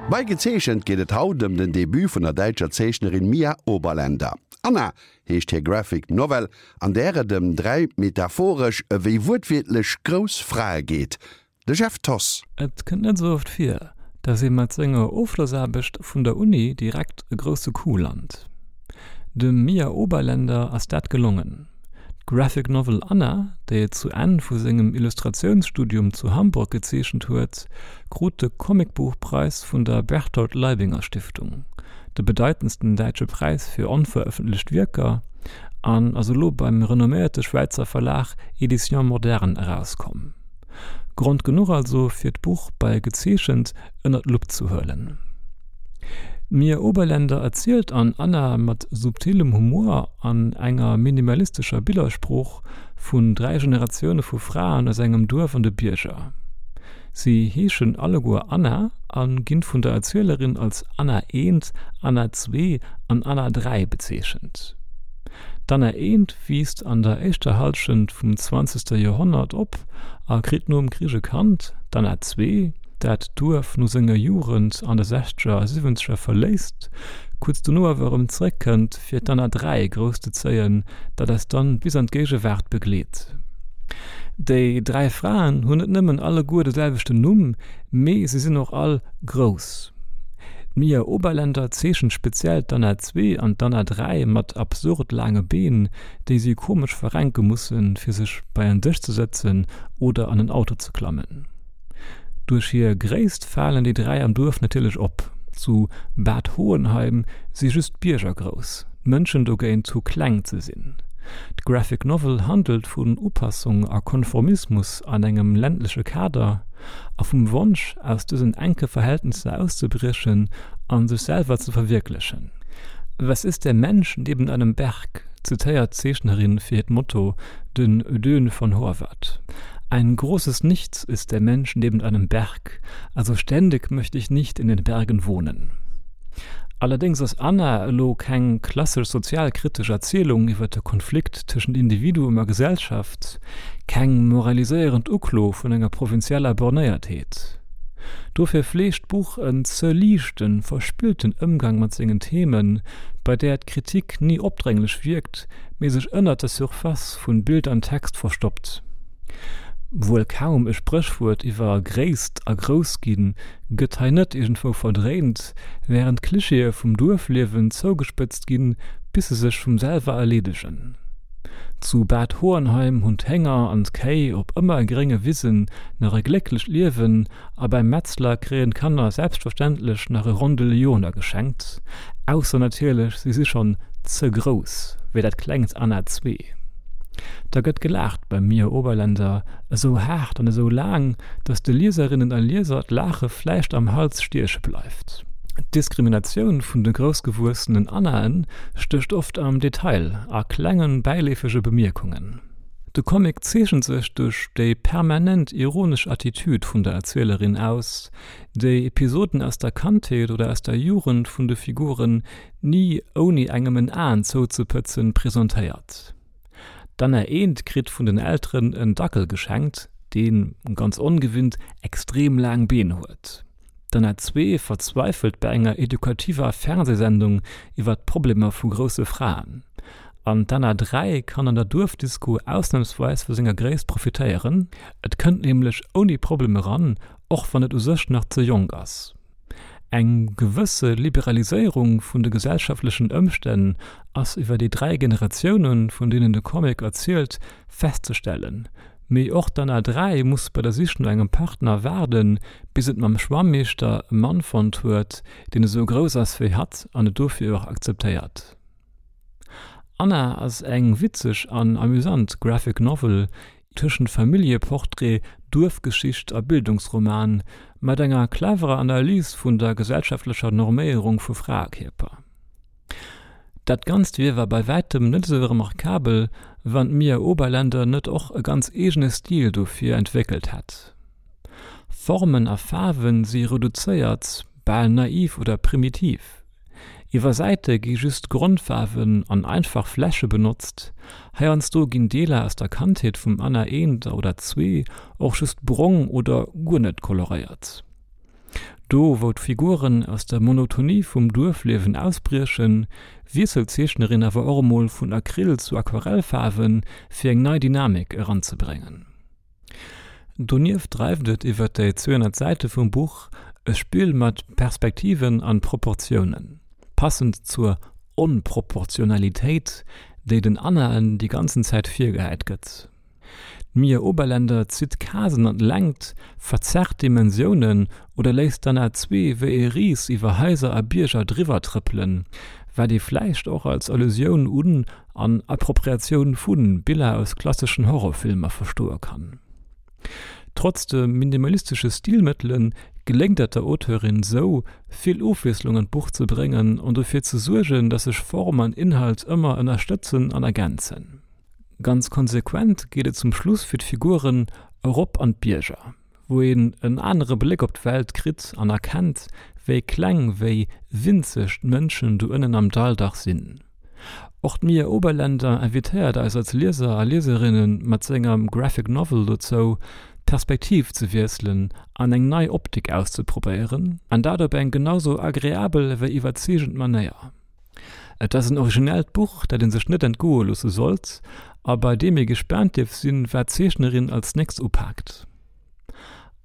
Bei Gezeechent geet et haut ëm den Debut vun der däitscher Zeechnerin Mia Oberländer. Anna heescht hir Graphic Novel, an där et ëm 3 metaphoresch ewéi wuertwiertlech grouss Frae geet. De Jeff Thoss. Et kënnt net esou oft vir, dass ee mat senger Ofschlossaarbecht vun der Uni direkt e grousse Coup lant. Dem Mia Oberländer ass dat gelongen. D'Graphic Novel Anna, déi et zu Enn vu sengem Illustratiounsstudium zu Hamburg gezeechent huet, krut de Comicbuchpreis vun der Berthold Leibinger Stiftung, de bedeitendsten däitsche Präis fir onverëffentlecht Wierker, an ass elo beim renomméierte Schwäizer Verlag Editions Modernes erauskomm. Grond genuch also fir d'Buch bei Gezeechent ënner d'Lupp ze huelen. D'Mia Oberländer erzielt an Anna mat subtilem Humor an enger minimalistescher Billersprooch vun 3 Generatioune vu Fraen aus engem Duerf an de Bierger. Si heeschen alleguer Anna a ginn vun der Erzielerin als Anna eent, Anna zwee an Anna 3 bezeechent. D'Anna eent wiisst an der éischter Hallschent vum zwanzegste Joerhonnert op a kritt nom Krich e Kand, d'Anna zwee, dat d'Duerf no senger Jugend an de sechzeger a siwwenzeger verléisst, kuerz dono awer erëm zeréckkënnt, fir d'Anna 3 grousszezéien, dat eis dann bis an d'Géigewaart begleet. Déi 3 Fraen hunn net nëmmen alleguer de selwechten Numm, mee se sinn och all grouss. D'Mia Oberländer zeechent speziell d'Anna 2 an d'Anna 3 mat absurd laange Been, déi si komesch verrenke mussen, fir sech bei en Dësch ze sëtzen oder an en Auto ze klammen. Duerch hir Gréisst falen déi 3 am Duerf natierlech op. Zu Bad Hohenheim si just d'Bierger grouss, d'Mënschen dogéint hu kleng ze sinn. D'Graphic Novel handelt vun Upassung a Konformismus an engem ländleche Kader a vum Wonsch, aus dësen enke Verhältnisser auszebriechen a sech selwer ze verwierklechen. Was ist der Mensch neben einem Berg? zitéiert d'Zeechnerin fir hiert Motto den Ödön von Horvath. Ein großes Nichts ist der Mensch neben einem Berg, also ständig möchte ich nicht in den Bergen wohnen. Allerdéngs ass Anna elo keng klassesch sozialkritesch Erzielung iwwer de Konflikt tëschent Individuum a Gesellschaft, keng moraliséierend Uklo vun enger provinzieller Bornéiertheet. Dofir fleegt d'Buch en ze liichten, verspillten Ëmgang mat sengen Themen, bei där d'Kritik ni opdrénglech wierkt, mee sech ënnert der Surface vun Bild an Text verstoppt. Wuel kaum e Spréchwuert iwwer Gréisst a Groussginn gëtt hei net iergendwou verdréint, wärend d'Klichéë vum Duerfliewen zougespëtzt ginn, bis se sech vum selwer erleedegen. Zu Bad Hohenheim hunn d'Hénger an d'Kéi op ëmmer grénge Wisen nach e glécklecht Liewen a beim Metzler kréien d'Kanner selbstverständlech nach e Rondel Lyoner geschenkt, ausser natierlech si si schonn ze grouss, wéi dat klengt Anna zwee. Da gëtt gelaacht beim Mia Oberländer, esou haart an esou laang, datt de Lieserinnen a Lieser d'Laache vläicht am Hals stieche bleift. D'Diskriminatioun vun de groussgewuessenen Annaen stécht oft am Detail, a klengen, bäileefege Bemierkungen. De Comic zeechent sech duerch déi permanent ironesch Attitüd vun der Erzielerin aus, déi Episoden aus der Kandheet oder aus der Jugend vun de Figuren ni ouni engem en Aen zouzepëtzen presentéiert. D'Anna Eent kritt vun den Elteren en Dackel geschenkt, deen, ganz ongewinnt, extrem laang Been huet. D'Anna 2 verzweifelt bei enger edukativer Fernsehsendung iwwer d'Problemer vu grousse Fraen. An d'Anna 3 kann an der Duerfdisco ausnamsweis vu senger Gréisst profitéieren, et kënnt nämlech ouni Problem eran, och wann et u sech nach ze jonk ass. Eng gewësse Liberaliséierung vun de gesellschaftlechen Ëmstänn ass iwwer déi 3 Generatiounen, vun deenen de Comic erzielt, festzestellen. Mee och d'Anna 3 muss bei der Sich no engem Partner waarden, bis et mam Schwammeeschter e Mann fonnt huet, deen esou grouss ass wéi hatt an et dofir och akzeptéiert. Anna ass eng witzeg an amüsant Graphic Novel tëschent Familljeportrait, Duerfgeschicht a Bildungsroman, mat enger cleverer Analys vun der gesellschaftlecher Norméierung vu Fraekierper. Dat Ganzt wier war bei wäitem net esou remarkabel, wann d'Mia Oberländer net och e ganz eegene Stil dofir entwéckelt hätt. Formen a Faarwen si reduzéiert, bal naiv oder primitiv. Iwwer Säite gi just Grondfaarwen an einfach Fläche benotzt, heiansdo ginn Deeler aus der Kandheet vum Anna eent oder zwee och just brong oder guer net koloréiert. Do wou d'Figuren aus der Monotonie vum Duerfliewen ausbriechen, wiesselt d'Zeechnerin awer och emol vun Acryl zu Aquarellfaarwen, fir eng nei Dynamik eranzebréngen. Donieft dreift et iwwer déi 200 Säite vum Buch e Spill mat Perspektiven an Proportiounen, passend zur Onproportionalitéit, déi den Annaen déi ganzen Zäit virgehäit gëtt. D'Mia Oberländer zitt Casen an d'Längt, verzerrt Dimensiounen oder léisst d'Anna Zwee wéi e Ris iwwer Haiser a Bierger driwwer trëppelen, wat ee vläicht och als Allusioun un an Appropriatioun vu Biller aus klasseschen Horrorfilmer verstoe kann. Trotz de minimalistesche Stilmëttele geléngt et der Auteurin sou, vill Ofwiesslung an d'Buch ze bréngen an dofir ze suergen, datt sech Form an Inhalt ëmmer ënnerstëtzen an ergänzen. Ganz konsequent geet et zum Schluss fir d'Figuren erop an d'Bierger, wou een en anere Bléck op d'Welt kritt an erkennt, wéi kleng, wéi winzeg d'Mënschen do ënnen am Dall dach sinn. Och d'Mia Oberländer invitéiert eis als Lieser a Lieserinne mat senger Graphic Novel dozou, d'Perspektiv ze wiesselen an eng nei Optik auszeprobéieren, an dat op eng genau sou agreabel ewéi iwwerzeegend Manéier. Et ass en originellt Buch, dat ee sech net entgoe loosse sollt a bei deem ee gespaant dierf sinn, wat d'Zeechnerin als nächst upaakt.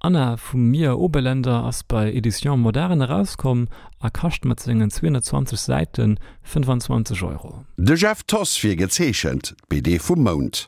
Anna vum Mia Oberländer ass bei Editions Moderne erauskomm a kascht mat sengen 220 Säite 25 Euro. De Jeff Thoss fir Gezeechent, d'BD vum Mount.